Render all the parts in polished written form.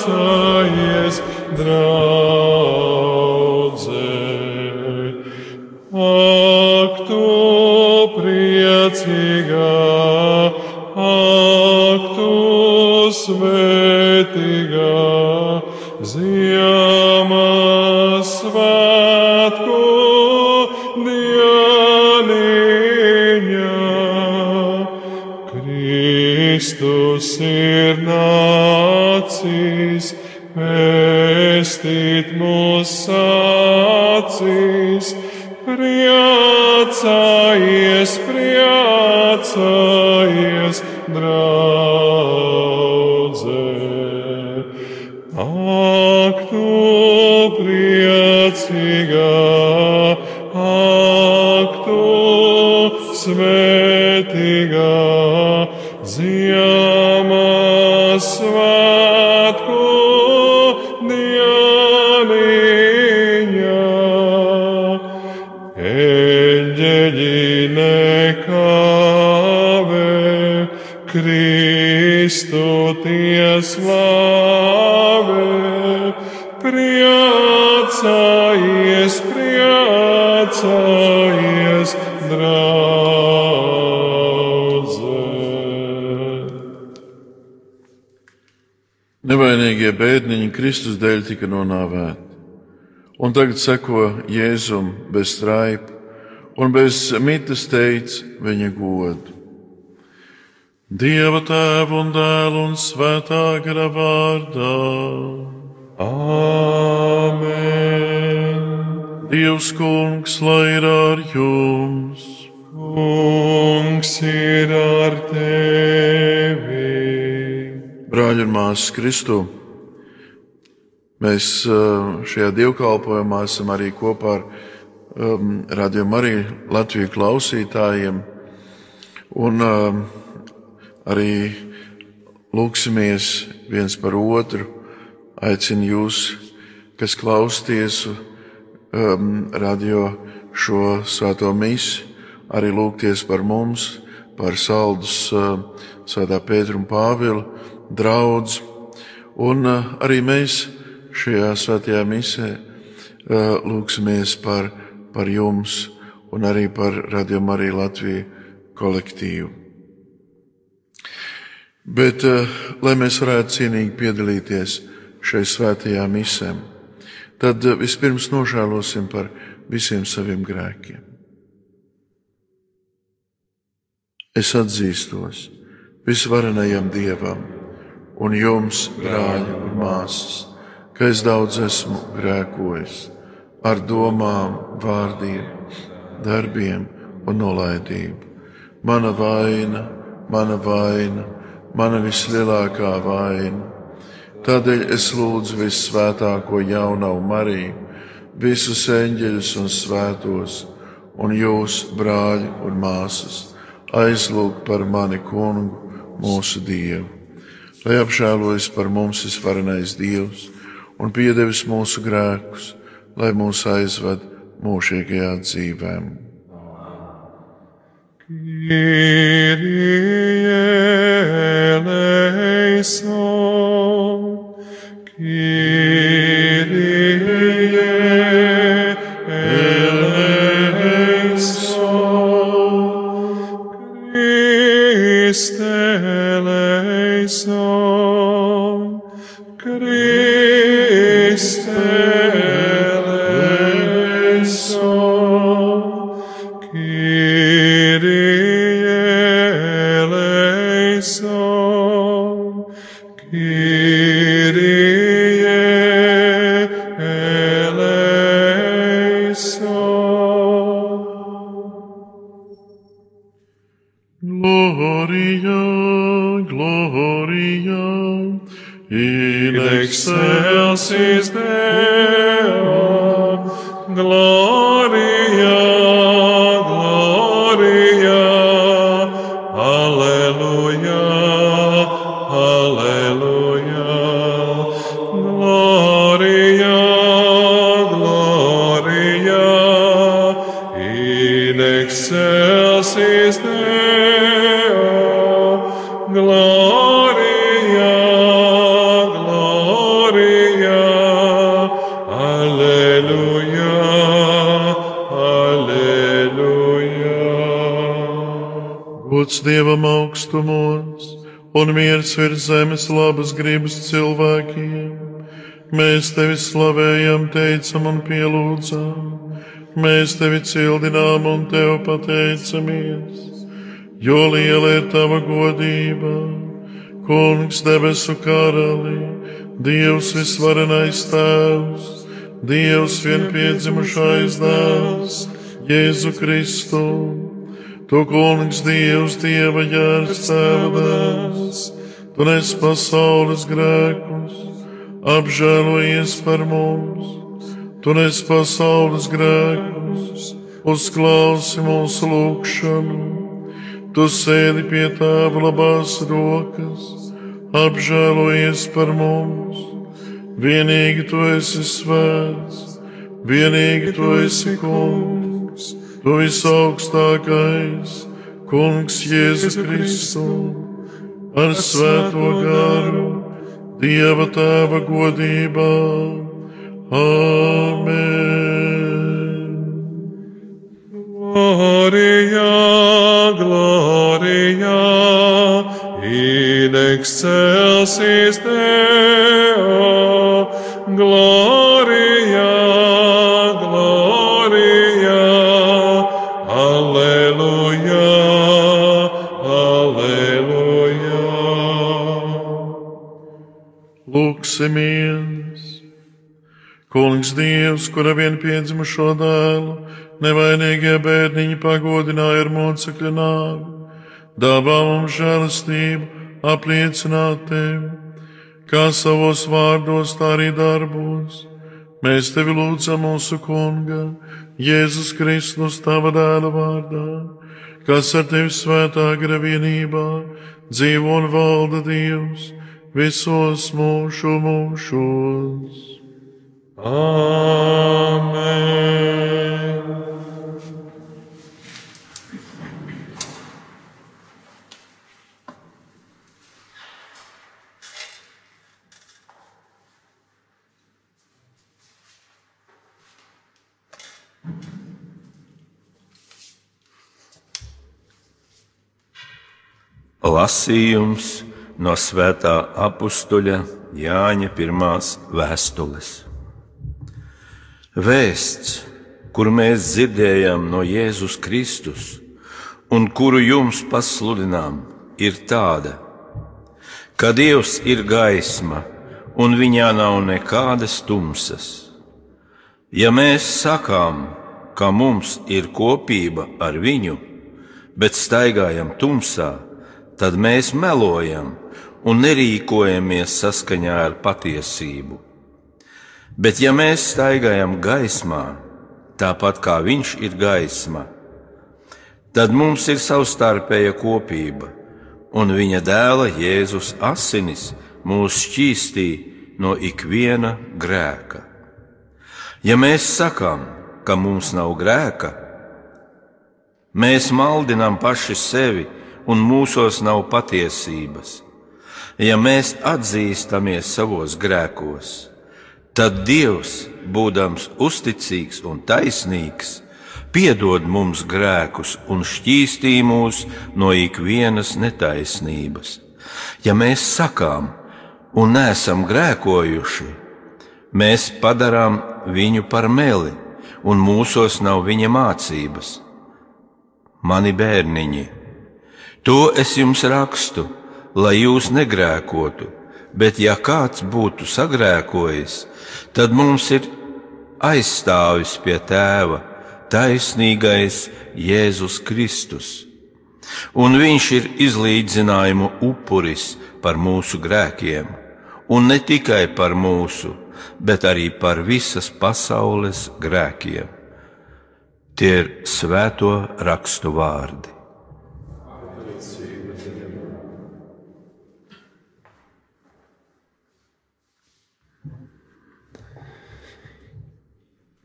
priecājies, draudze. Ak, tu priecīgā, ak, tu svētīgā, Ziemassvētku dieniņa. Kristus ir nācis, pestīt mūs acīs, priecājies, priecājies, draudze. Ak, tu priecīgā, ak, tu svētīgā, Ziemassvētku dieniņa. Eļļeļi nekavē, Kristu tie slavē, priecājies, priecājies, draudze. Nevainīgie bēdniņi Kristus dēļ tika nonāvēti, un tagad seko Jēzum bez straipa, un bez mitas teic viņa godu. Dieva Tēva un Dēla un Svētā gara vārdā. Āmen. Dievs Kungs, lai ir ar jums. Kungs ir ar tevi. Brāļi un māsas Kristu, mēs šajā dievkalpojumā esam arī kopā ar Radio Mariju Latviju klausītājiem, un arī lūksimies viens par otru. Aicinu jūs, kas klausties radio šo svēto misi, arī lūgties par mums, par Saldus Svētā Pētera un Pāvila draudzi. Un arī mēs šajā svētajā misē lūksimies par jums un arī par Radio Mariju Latviju kolektīvu. Bet, lai mēs varētu cienīgi piedalīties šai svētajā misē, tad vispirms nožēlosim par visiem saviem grēkiem. Es atzīstos visvarenajam Dievam un jums, brāļi un māsas, ka es daudz esmu grēkojis ar domām, vārdiem, darbiem un nolaidību. Mana vaina, mana vislielākā vaina. Tādēļ es lūdzu vissvētāko jaunavu Mariju, visus eņģeļus un svētos, un jūs, brāļi un māsas, aizlūgt par mani Kungu, mūsu Dievu, lai apžēlojas par mums visvarenais Dievs un piedevis mūsu grēkus, lai mūs aizved mūžīgajā dzīvēm. Kyrie eleison, Kyrie eleison, Christe eleison, Christe eleison, Kyrie eleison, Kyrie eleison. Gloria, Gloria, in Excelsis Deo, Gloria, Gloria, Alleluia, Alleluia, Gloria, Gloria, in excelsis Deo, Gloria, Gloria. gods Dievam augstumos un miers virs zemes labas gribas cilvēkiem. Mēs tevi slavējam, teicam un pielūdzam, mēs tevi cildinām un tev pateicamies, jo liela ir tava godība, Kungs debesu karali, Dievs visvarenais Tēvs, Dievs vienpiedzimušais Dēls, Jēzu Kristu. Tu, Kungs, Dievs, Dieva jērs, Tēva Dēls, tu nes pasaules grēkus, apžēlojies par mums. Tu nes pasaules grēkus, uzklausi mūsu lūgšanu. Tu sēdi pie Tēva labās rokas, apžēlojies par mums. Vienīgi tu esi svēts, vienīgi tu esi Kungs. Tu visaugstākais, Kungs Jēzu Kristu, ar svēto garu, Dieva Tēva godībā. Āmen. Gloria, gloria, in excelsis Deo, gloria. Lūksimies! Kungs Dievs, kura vienpiedzimušo dēlu, nevainīgie bērniņi pagodināja ar mocekļa nāvi, dāvā mums žēlastību apliecināt tevi, kā savos vārdos, tā arī darbos. Mēs tevi lūdzam mūsu Kunga, Jēzus Kristus, tava dēla vārdā, kas ar tevi svētā gara vienībā dzīvo un valda Dievs visos mūžu mūžos. Āmen. Lasījums no svētā apustuļa Jāņa pirmās vēstules. Vēsts, kuru mēs dzirdējām no Jēzus Kristus un kuru jums pasludinām, ir tāda, ka Dievs ir gaisma un viņā nav nekādas tumsas. Ja mēs sakām, ka mums ir kopība ar viņu, bet staigājam tumsā, tad mēs melojam un nerīkojamies saskaņā ar patiesību. Bet ja mēs staigājam gaismā, tāpat kā viņš ir gaisma, tad mums ir savstarpēja kopība, un viņa dēla Jēzus asinis mūs šķīstī no ikviena grēka. Ja mēs sakām, ka mums nav grēka, mēs maldinām paši sevi, un mūsos nav patiesības. Ja mēs atzīstamies savos grēkos, tad Dievs, būdams uzticīgs un taisnīgs, piedod mums grēkus un šķīstī mūs no ikvienas netaisnības. Ja mēs sakām un neesam grēkojuši, mēs padarām viņu par meli, un mūsos nav viņa mācības. Mani bērniņi, to es jums rakstu, lai jūs negrēkotu, bet ja kāds būtu sagrēkojis, tad mums ir aizstāvis pie Tēva, taisnīgais Jēzus Kristus. Un viņš ir izlīdzinājumu upuris par mūsu grēkiem, un ne tikai par mūsu, bet arī par visas pasaules grēkiem. Tie ir svēto rakstu vārdi.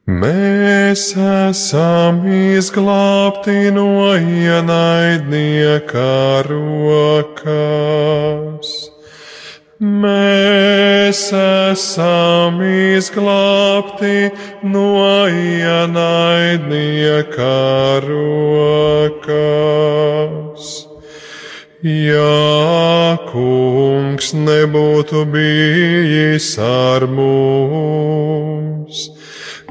Mēs esam izglābti no ienaidnieka rokās. Mēs esam izglābti no ienaidnieka rokās. Ja Kungs nebūtu bijis ar mums,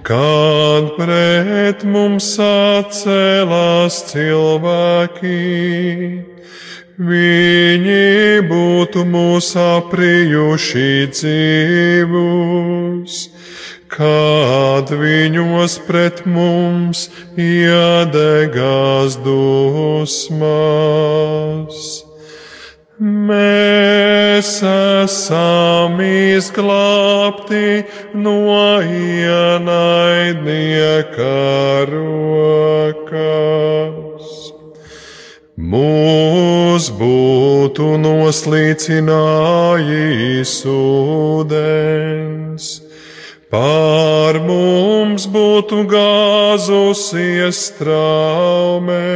kad pret mums sacēlās cilvēki, viņi būtu mūs aprijuši dzīvus, kad viņos pret mums iedegās dusmas. Mēs esam izglābti no ienaidnieka rokas. Mūs būtu noslīcinājis ūdens, pār mums būtu gāzusies traume,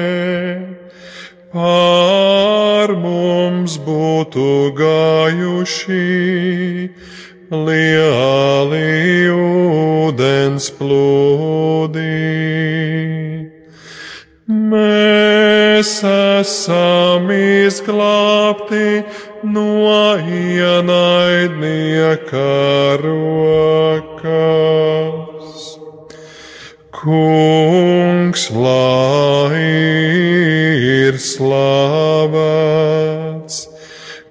pār mums būtu gājuši lieli ūdens plūdi. Mēs esam izglābti no ienaidnieka rokas. Kungs, lai ir slavēts,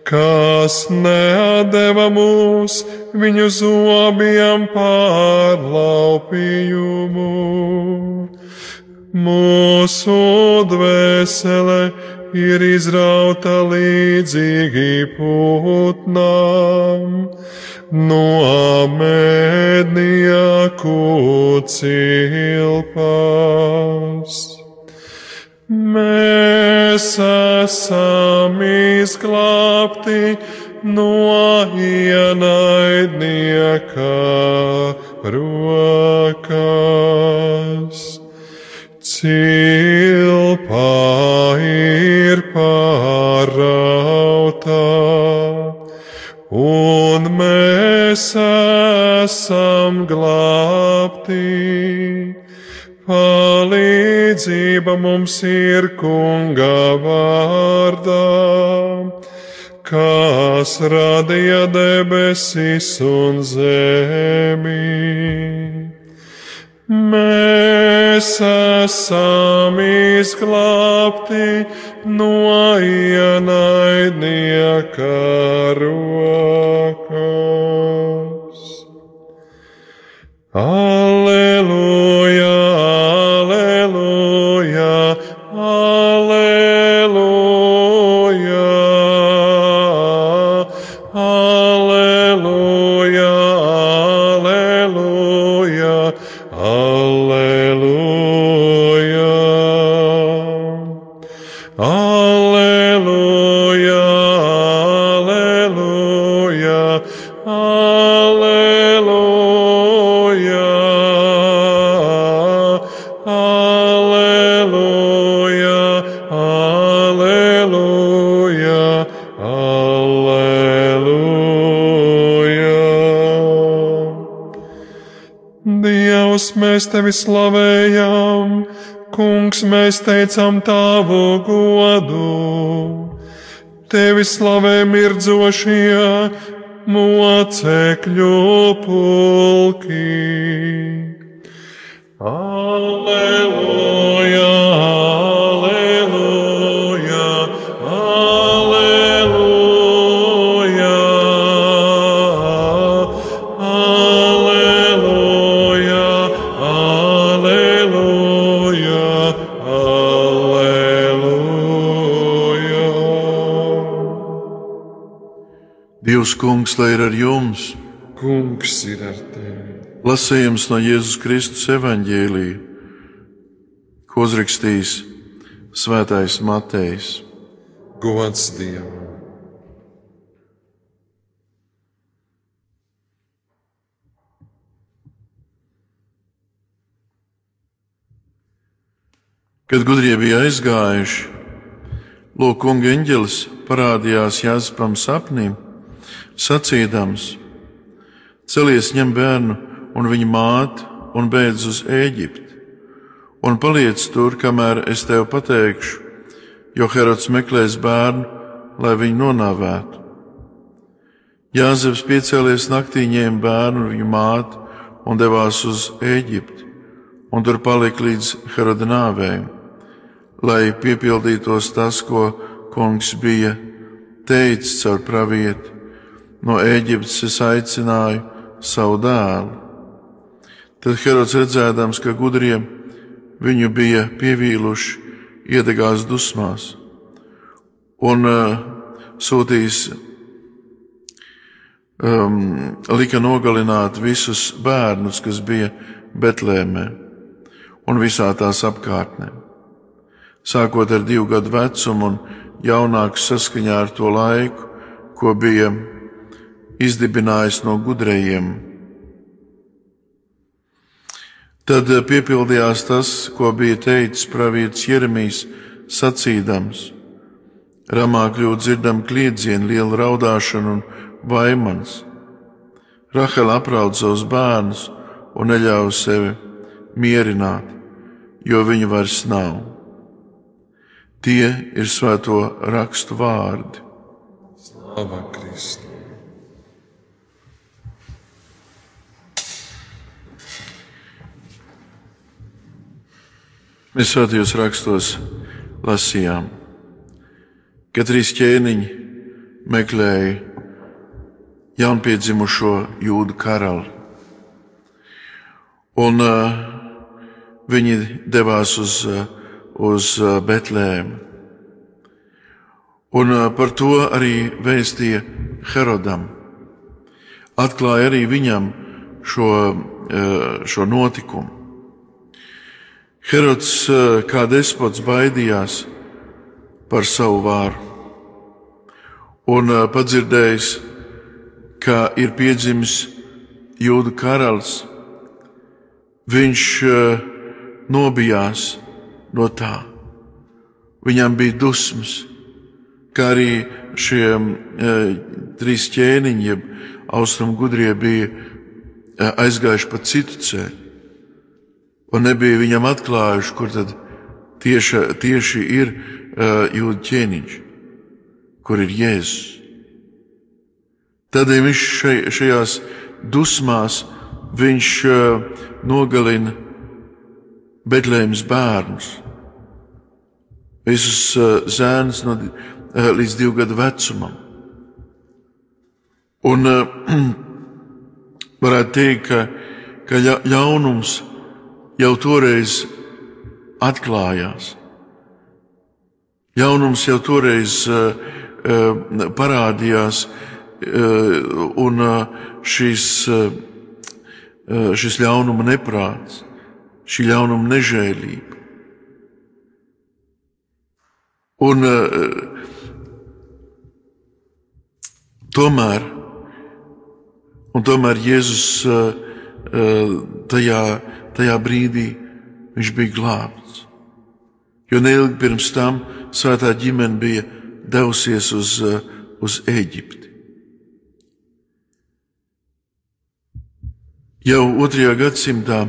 kas neatdeva mūs viņu zobiem par laupījumu. Mūsu dvēsele ir izrauta līdzīgi putnām no mednieku cilpas. Mēs esam izglābti no ienaidnieka rokas. Cilpa ir pārauta, un mēs esam glābti. Palīdzība mums ir Kunga vārdā, kas radīja debesis un zemi. Mēs esam izglābti no ienaidnieka rokas. Alleluja, alleluja, alleluja, alleluja, alleluja. Alleluja, alleluja, alleluia, alleluia, alleluia, alleluia. Dievs, mēs tevi slavējam, Kungs, mēs teicam tavu godu. Tevi slavē mirdzošie mocekļu pulki. Alleluja, alleluja, alleluja, alleluja, alleluja, alleluja. Dievs, Kungs, lai ir ar jums! Kungs ir ar tevi! Lasījums no Jēzus Kristus evaņģēlija, ko uzrakstījis Svētais Matejs. Gods Dievam! Kad gudrie bija aizgājuši, lūk, Kunga eņģelis parādījās Jāzepam sapnī, sacīdams: celies, ņem bērnu un viņa māti un beidz uz Ēģipti, un paliec tur, kamēr es tev pateikšu, jo Herods meklēs bērnu, lai viņu nonāvētu. Jāzeps piecēlies naktī, ņēma bērnu un viņu māti un devās uz Ēģipti, un tur palika līdz Heroda nāvei, lai piepildītos tas, ko kungs bija teicis caur pravieti: no Ēģiptes es aicināju savu dēlu. Tad Herods, redzēdams, ka gudrie viņu bija pievīluši, iedegās dusmās un lika nogalināt visus bērnus, kas bija Betlēmē un visā tās apkārtnē, sākot ar 2 gadu vecumu un jaunāks saskaņā ar to laiku, ko bija izdibinājis no gudrajiem. Tad piepildījās tas, ko bija teicis pravietis Jeremijs, sacīdams: Ramā kļūt dzirdam kliedzienu, lielu raudāšanu un vaimans. Rahela apraud savus bērnus un neļauj sevi mierināt, jo viņu vairs nav. Tie ir svēto rakstu vārdi. Slava Kristu! Mēs svētajos rakstos lasījām, ka 3 ķēniņi meklēja jaunpiedzimušo Jūdu karali, un viņi devās uz Betlēmu. Un par to arī vēstīja Herodam. Atklāja arī viņam šo notikumu. Herods kā despots baidījās par savu vāru un padzirdējis, ka ir piedzimis Jūdu karalis, viņš nobijās no tā. Viņam bija dusmas, kā arī šie 3 ķēniņi, jeb austrumu gudrie, bija aizgājuši pa citu ceļu un nebija viņam atklājuši, kur tad tieši ir Jūdu ķēniņš, kur ir Jēzus. Tādēļ viņš šajās dusmās viņš nogalina Betlēmes bērnus, visus zēnus līdz 2 gadu vecumam. Un varētu teikt, ka ļaunums jau toreiz atklājās. Ļaunums jau toreiz parādījās, un šis ļaunuma neprāts, šī ļaunuma nežēlība. Un tomēr Jēzus tajā brīdī viņš bija glābts, jo neilgi pirms tam svētā ģimene bija devusies uz Ēģipti. Jau 2. gadsimtā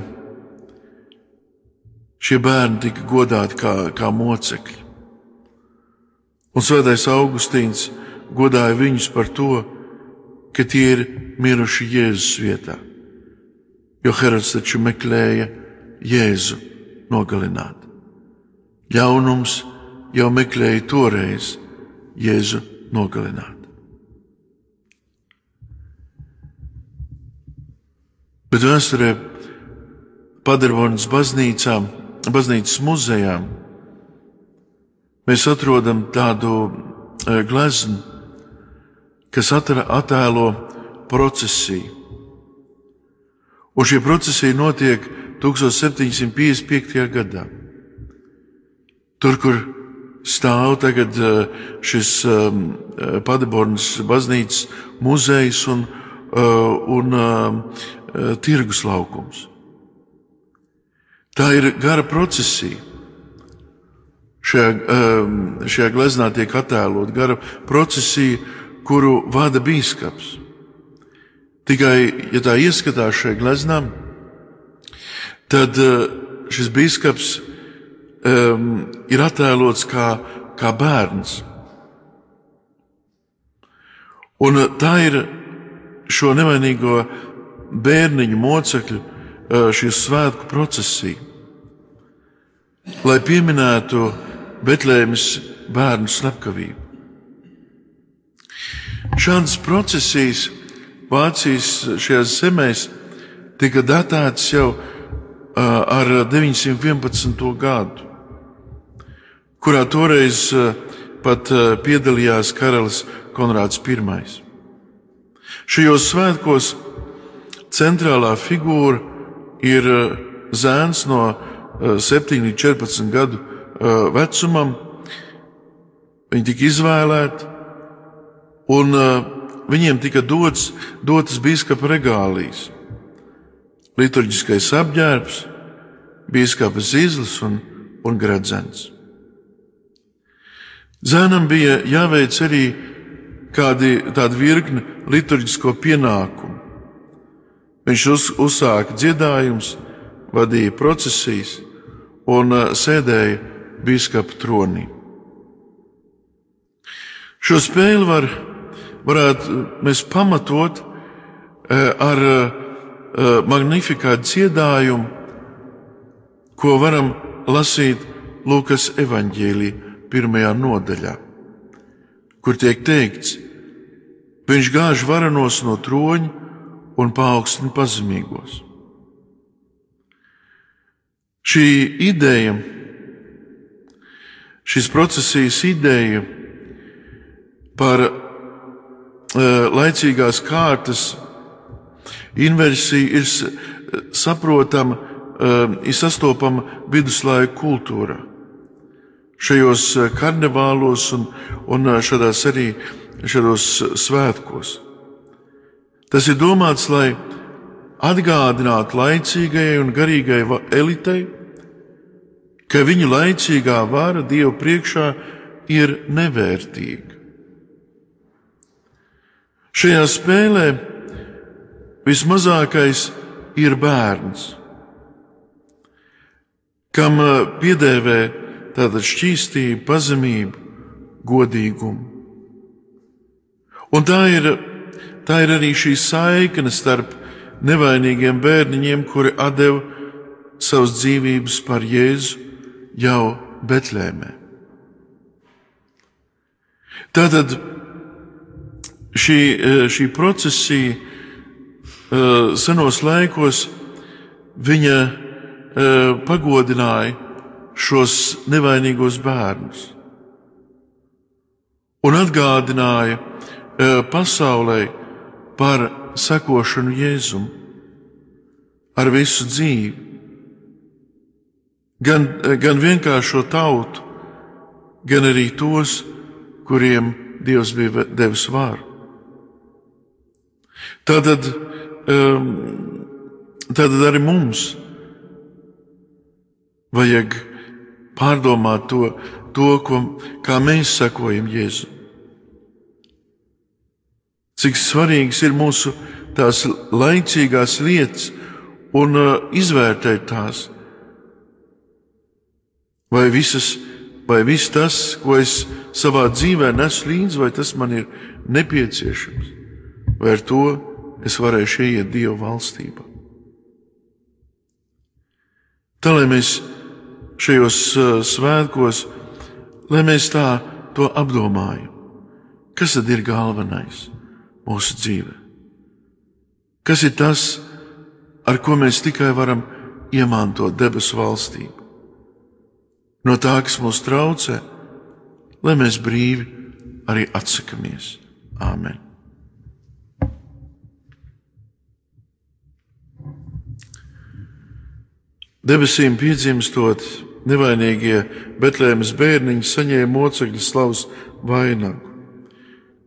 šie bērni tika godāti kā mocekļi, un svētais Augustīns godāja viņus par to, ka tie ir miruši Jēzus vietā, jo Herods taču meklēja Jēzu nogalināt. Ļaunums jau meklēja toreiz Jēzu nogalināt. Bet vēsturē Paderbornas baznīcas muzejā mēs atrodam tādu gleznu, kas attēlo procesiju. Un šī procesija notiek 1755. gadā. Tur, kur stāv tagad šis Paderbornas baznīcas muzejs un tirgus laukums. Tā ir gara procesija. Šajā gleznā tiek attēlot gara procesija, kuru vada bīskaps. Tikai, ja tā ieskatās šajā gleznā, tad šis bīskaps ir attēlots kā bērns. Un tā ir šo nevainīgo bērniņu mocekļu šī svētku procesija, lai pieminētu Betlēmes bērnu slepkavību. Šādas procesijas Vācijas šajās zemēs tika datētas jau ar 911. gadu, kurā toreiz pat piedalījās karalis Konrāds I. Šajos svētkos centrālā figūra ir zēns no 7 līdz 14 gadu vecumam. Viņi tika izvēlēti, un viņiem tika dotas bīskapa regālijas, liturģiskais apģērbs, bīskapa zīzlis un gredzens. Zēnam bija jāveic arī tāda virkne liturģisko pienākumu. Viņš uzsāka dziedājumus, vadīja procesijas un sēdēja bīskapa tronī. Šo spēli varētu mēs pamatot ar magnifikātu dziedājumu, ko varam lasīt Lūkas evaņģēlijā 1. nodaļā, kur tiek teikts: viņš gāž varenos no troņa un paaugstina pazemīgos. Šī ideja, šīs procesijas ideja par laicīgās kārtas inversiju ir saprotama, ir sastopama viduslaiku kultūrā. Šajos karnevālos un šādos svētkos. Tas ir domāts, lai atgādinātu laicīgajai un garīgajai elitei, ka viņu laicīgā vara Dievu priekšā ir nevērtīga. Šajā spēlē vismazākais ir bērns, kam piedēvē tātad šķīstību, pazemību, godīgumu. Un tā ir arī šī saikne starp nevainīgiem bērniņiem, kuri atdeva savas dzīvības par Jēzu jau Betlēmē. Tātad šī procesija senos laikos viņa pagodināja šos nevainīgos bērnus un atgādināja pasaulē par sekošanu Jēzum ar visu dzīvi, gan vienkāršo tautu, gan arī tos, kuriem Dievs bija devis varu. Tātad arī mums vajag pārdomāt kā mēs sekojam Jēzu. Cik svarīgas ir mūsu tās laicīgās lietas un izvērtēt tās. Vai viss tas, ko es savā dzīvē nesu līdzi, vai tas man ir nepieciešams, vai ar to es varēšu ieiet Dieva valstībā. Tā, lai mēs šajos svētkos, lai mēs tā to apdomājam, kas tad ir galvenais mūsu dzīvē? Kas ir tas, ar ko mēs tikai varam iemantot debesu valstību? No tā, kas mūs traucē, lai mēs brīvi arī atsakamies. Āmen. Debesīm piedzimstot, nevainīgie Betlēmes bērniņi saņēma mocekļa slavas vainagu.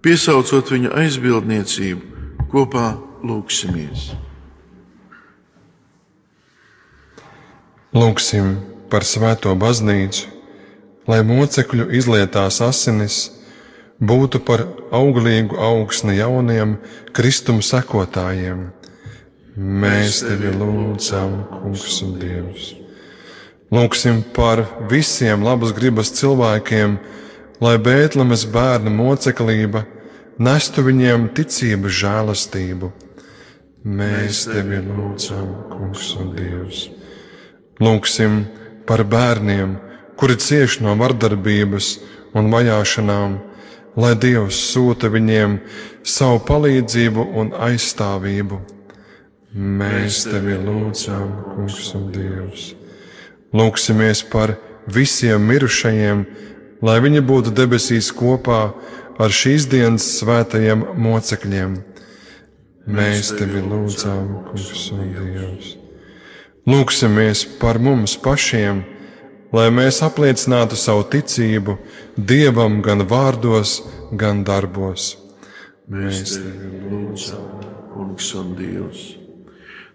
Piesaucot viņa aizbildniecību, kopā lūgsimies. Lūgsim par svēto baznīcu, lai mocekļu izlietās asinis būtu par auglīgu augsni jauniem Kristuma sekotājiem. Mēs tevi lūdzam, Kungs un Dievs. Lūgsim par visiem labas gribas cilvēkiem, lai Bētlemes bērna moceklība nestu viņiem ticības žēlastību. Mēs tevi lūdzam, Kungs un Dievs. Lūgsim par bērniem, kuri cieš no vardarbības un vajāšanām, lai Dievs sūta viņiem savu palīdzību un aizstāvību. Mēs tevi lūdzam, Kungs un Dievs. Lūgsimies par visiem mirušajiem, lai viņi būtu debesīs kopā ar šīs dienas svētajiem mocekļiem. Mēs tevi lūdzam, Kungs un Dievs. Lūgsimies par mums pašiem, lai mēs apliecinātu savu ticību Dievam gan vārdos, gan darbos. Mēs tevi lūdzam, Kungs un Dievs.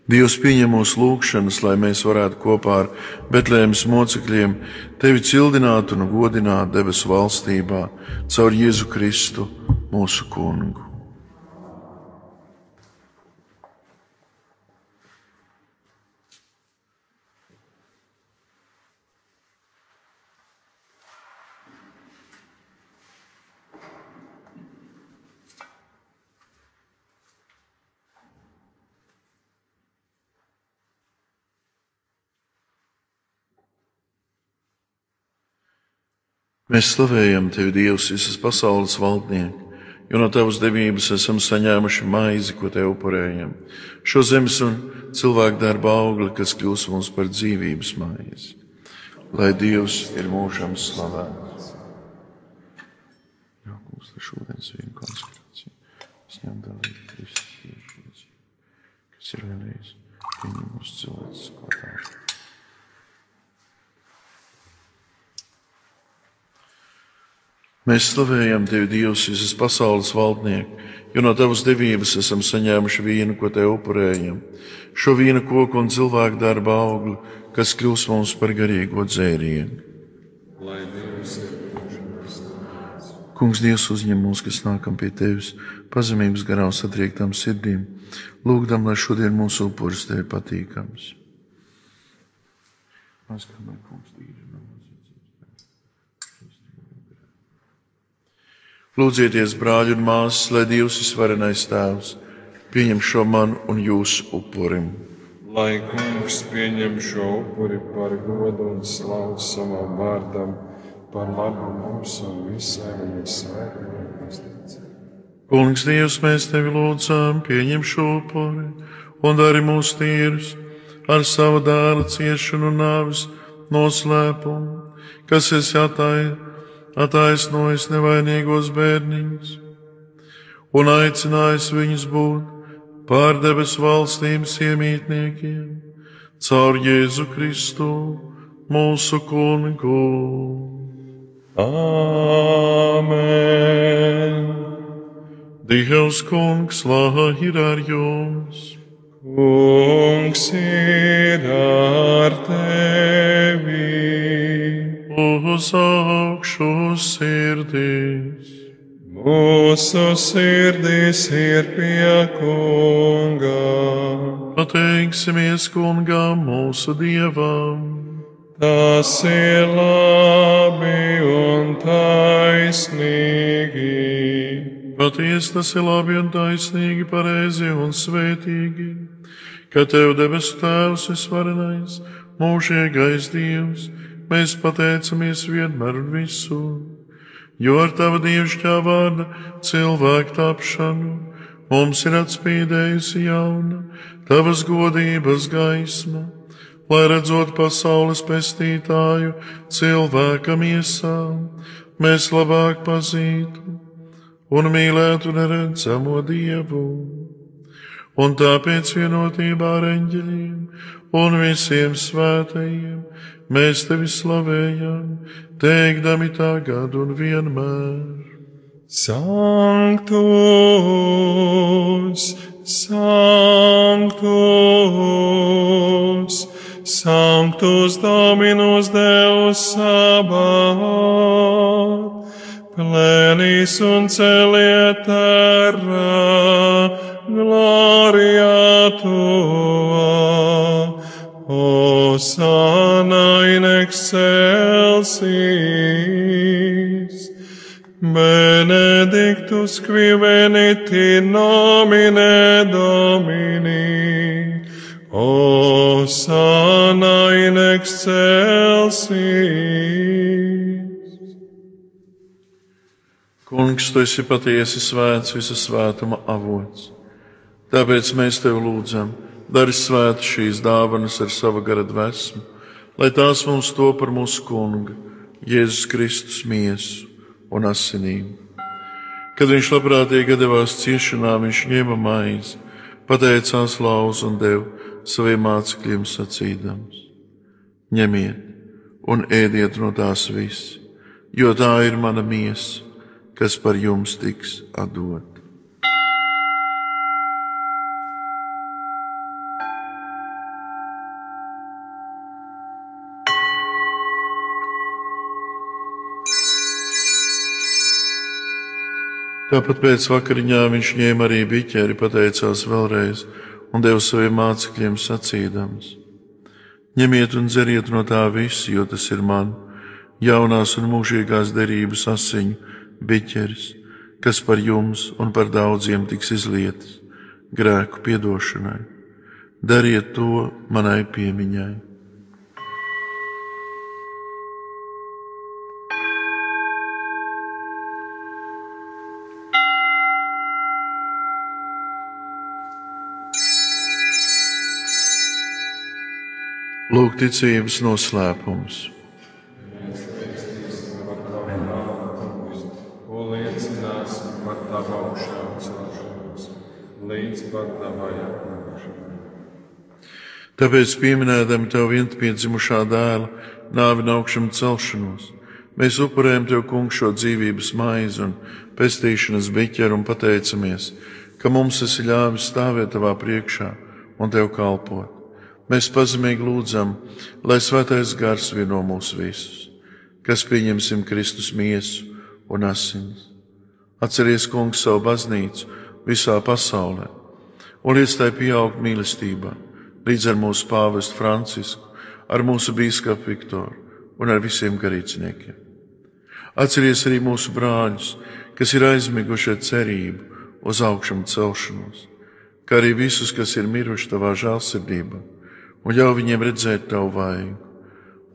Dievs pieņem mūsu lūgšanas, lai mēs varētu kopā ar Betlēmes mocekļiem tevi cildināt un godināt debesu valstībā caur Jēzu Kristu, mūsu Kungu. Mēs slavējam Tevi, Dievs, visas pasaules valdnieki, jo no Tavas devības esam saņēmuši maizi, ko Tev upurējam, šo zemes un cilvēku darba augli, kas kļūs mums par dzīvības maizi. Lai Dievs ir mūžam slavēts. Jā, kungs, ar šodienas vīnu konsekrāciju. Es ņem dalīt Kristus Jēzus, kas ir vienreiz pieņem mūsu cilvēks klātā. Mēs slavējam Tevi, Dievs, visas pasaules valdnieki, jo no Tavas devības esam saņēmuši vīnu, ko Tev upurējam, šo vīna koku un cilvēku darba augli, kas kļūs mums par garīgo dzērienu. Lai Dievs ir mūžams slavēts. Kungs, Dievs, uzņem mūs, kas nākam pie Tevis, pazemības garā un satriektām sirdīm, lūgdam, lai šodien mūsu upuris Tevi patīkams. Lūdzieties, brāļi un māsas, lai Dievs visvarenais Tēvs pieņem šo manu un jūsu upurim. Lai Kungs pieņem šo upuri par godu un slavu savam vārdam, par labu mums un visai viņa svētajai baznīcai. Kungs, Dievs, mēs Tevi lūdzam, pieņem šo upuri un dari mūs tīrus ar savu dēla ciešanu un nāves noslēpumu, kas esi attaisnojis nevainīgos bērniņus un aicinājis viņus būt pār debesu valstības iemītniekiem caur Jēzu Kristu, mūsu Kungu. Āmen! Dievs Kungs, lai ir ar jums! Kungs ir ar tevi! Uz augšu sirdīs! Mūsu sirdīs ir pie Kunga. Pateiksimies Kungam, mūsu Dievam. Tas ir labi un taisnīgi. Patiesi tas ir labi un taisnīgi, pareizi un svētīgi, ka Tev debesu Tēvs visvarenais, mūžīgais Dievs, mēs pateicamies vienmēr un visur, jo ar Tava dievišķā vārda cilvēku tapšanu mums ir atspīdējusi jauna Tavas godības gaisma, lai redzot pasaules pestītāju cilvēka miesām, mēs labāk pazītu un mīlētu neredzamo Dievu. Un tāpēc vienotībā ar eņģeļiem un visiem svētajiem mēs Tevi slavējam, teikdami tagad un vienmēr. Sanctus, Sanctus, Sanctus Dominus Deus Sabaoth, plenis un celiet terra, gloria Tua, Hosanna in excelsis, Benedictus qui venit in nomine Domini, Hosanna in excelsis. Kungs, tu esi patiesi svēts, visa svētuma avots. Tāpēc mēs tev lūdzam, dari svētu šīs dāvanas ar sava gara dvēsmu, lai tās mums to par mūsu Kunga, Jēzus Kristus miesu un asinīm. Kad viņš labprātīgi devās ciešanā, viņš ņēma maizi, pateicās, lauza un deva saviem mācekļiem sacīdams: ņemiet un ēdiet no tās visi, jo tā ir mana miesa, kas par jums tiks atdota. Tāpat pēc vakariņām viņš ņēma arī biķeri, pateicās vēlreiz un deva saviem mācekļiem sacīdams: ņemiet un dzeriet no tā visu, jo tas ir man jaunās un mūžīgās derības asiņu biķeris, kas par jums un par daudziem tiks izlietas grēku piedošanai. Dariet to manai piemiņai. Lūk, ticības noslēpums. Ko liecināsim par tavu augšām celšanos, līdz pat tavai atnākšanai. Tāpēc, pieminēdami tev vienpiedzimušā dēla nāvi un augšām celšanos, mēs upurējam tev, Kungs, šo dzīvības maizi un pestīšanas biķeru un pateicamies, ka mums esi ļāvis stāvēt tavā priekšā un tev kalpot. Mēs pazemīgi lūdzam, lai svētais gars vieno mūs visus, kas pieņemsim Kristus miesu un asinis. Atceries, Kungs, savu baznīcu visā pasaulē un liec tai pieaugt mīlestībā, līdz ar mūsu pāvestu Francisku, ar mūsu bīskapu Viktoru un ar visiem garīdzniekiem. Atceries arī mūsu brāļus, kas ir aizmiguši ar cerību uz augšām celšanos, kā arī visus, kas ir miruši tavā žēlsirdībā, un ļauj viņiem redzēt tavu vaigu.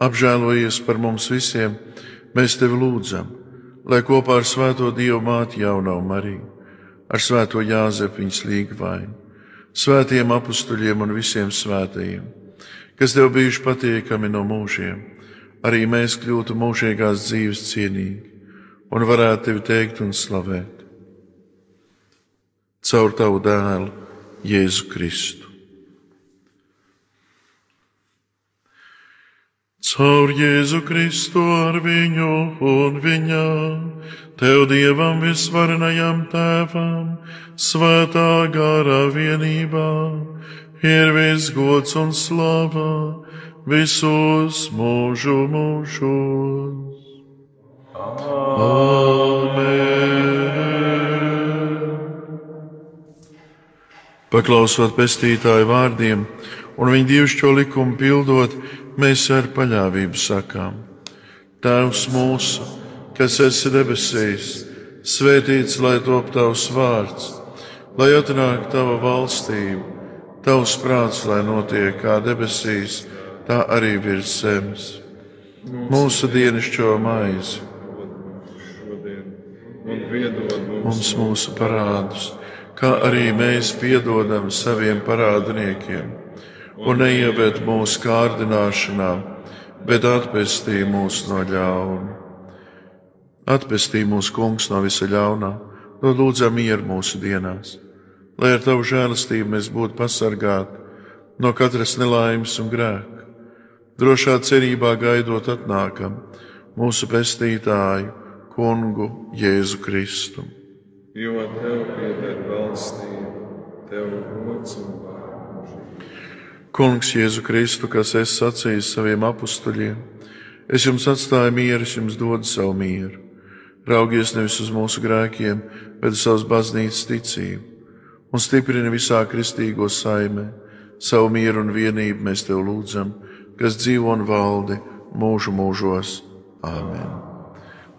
Apžēlojies par mums visiem, mēs tevi lūdzam, lai kopā ar svēto Dievu māti jaunā Mariju, ar svēto Jāzepu viņas līgvainu, svētiem apustuļiem un visiem svētajiem, kas tev bijuši patiekami no mūžiem, arī mēs kļūtu mūžīgās dzīves cienīgi un varētu tevi teikt un slavēt. Caur tavu dēlu, Jēzu Kristu. Caur Jēzu Kristu ar viņu un viņā, tev Dievam visvarenajam Tēvam, svētā gara vienībā, ir viss gods un slava visos mūžu mūžos. Amen. Paklausot pestītāju vārdiem un viņa dievišķo likumu pildot, mēs ar paļāvību sakām: Tēvs mūsu, kas esi debesīs, svētīts lai top tavs vārds, lai atnāk tava valstība, tavs prāts, lai notiek kā debesīs, tā arī virs zemes. Mūsu dienascho maizi un piedod mums mūsu parādus, kā arī mēs piedodam saviem parādniekiem. Un neieved mūsu kārdināšanā, bet atpestī mūs no ļauna. Atpestī mūs, Kungs, no visa ļaunā, no lūdzam mieru mūsu dienās, lai ar tavu žēlastību mēs būtu pasargāti no katras nelaimes un grēka, drošā cerībā gaidot atnākam mūsu pestītāju, Kungu Jēzu Kristu. Jo tev pieder valstība, tev gods un vārds. Kungs Jēzu Kristu, kas esi sacījis saviem apustuļiem, es jums atstāju mieru, es jums dodu savu mieru. Raugies nevis uz mūsu grēkiem, bet uz savas baznīcas ticību, un stiprini visā kristīgo saimē. Savu mieru un vienību mēs tev lūdzam, kas dzīvo un valdi mūžu mūžos. Āmen.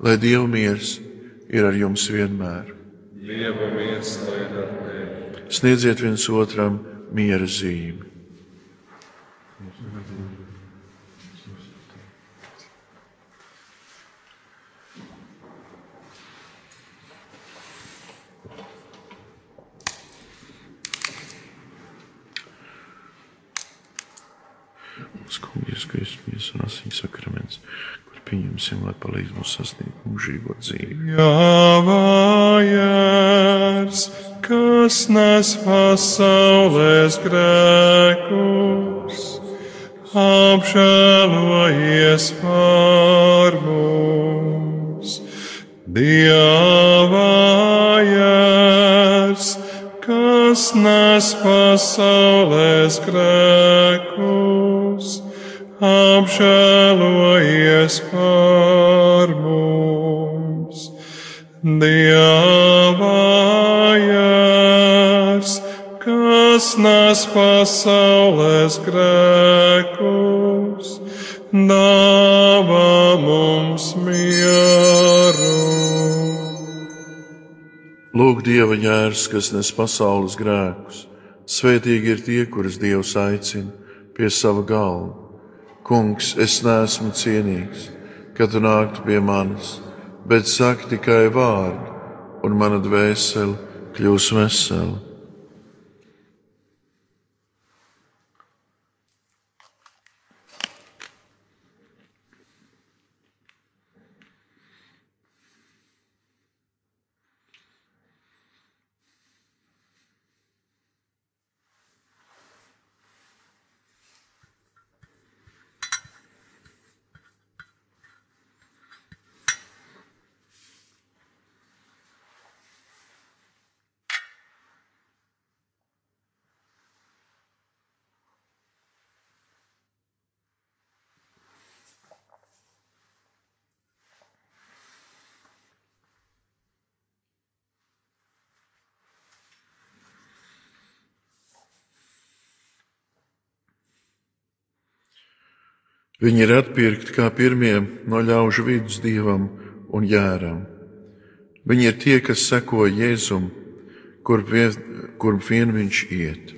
Lai Dieva miers, ir ar jums vienmēr. Dieva miers lai ir ar tevi. Sniedziet viens otram miera zīmi. Kungs, Kristus un asiņu sakraments, kur pieņemsim, lai palīdz mums sasniegt mūžīgo dzīvi. Jāvājās, kas nes pasaules grēkus, apžēlojies par mums. Dievājās, kas nes pasaules grēkus, apžēlojies par mums. Dievājās, kas nes pasaules grēkus, dāvā mums mieru. Lūk, Dieva jērs, kas nes pasaules grēkus. Svētīgi ir tie, kurus Dievs aicina pie sava galva. Kungs, es neesmu cienīgs, ka tu nāktu pie manis, bet saki tikai vārdu, un mana dvēsele kļūs vesela. Viņi ir atpirkti kā pirmie no ļaužu vidus dievam un jēram. Viņi ir tie, kas seko Jēzum, kurp vien viņš iet.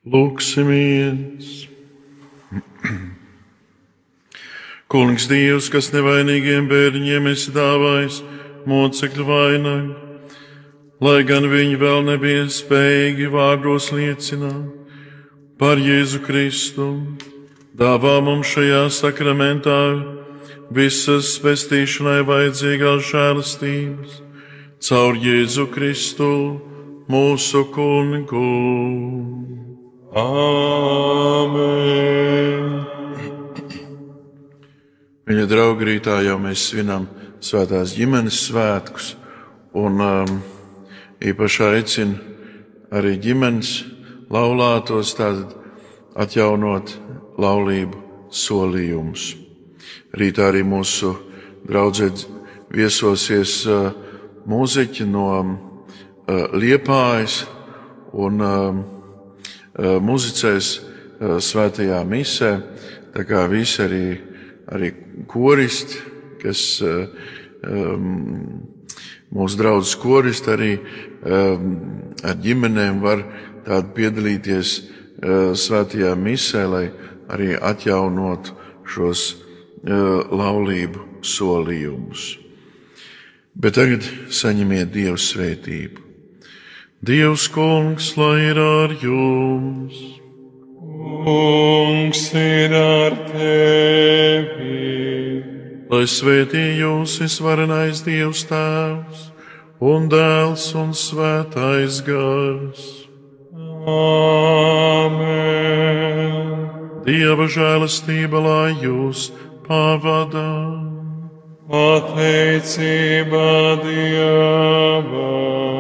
Lūksimies! Kungs Dievs, kas nevainīgiem bērniņiem esi dāvājis mocekļu vainagu, lai gan viņi vēl nebija spējīgi vārdos liecināt par Jēzu Kristu, dāvā mums šajā sakramentā visas pestīšanai vajadzīgās žēlastības caur Jēzu Kristu, mūsu Kungu. Āmen! Viņa draugi, rītā jau mēs svinam svētās ģimenes svētkus, un īpaši aicinu arī ģimenes laulātos tātad atjaunot laulību solījumus. Rītā arī mūsu draudzē viesosies mūziķi no Liepājas un muzicēs svētajā misē, tā kā visi arī koristi, kas mūsu draudzes koristi arī ar ģimenēm var tādu piedalīties svētajā misē, lai arī atjaunotu šos laulību solījumus. Bet tagad saņemiet Dieva svētību. Dievs Kungs, lai ir ar jums! Kungs ir ar tevi! Lai svētī jūs visvarenais Dievs Tēvs un Dēls un Svētais Gars. Āmen! Dieva žēlastība, lai jūs pavada. Pateicība Dievam!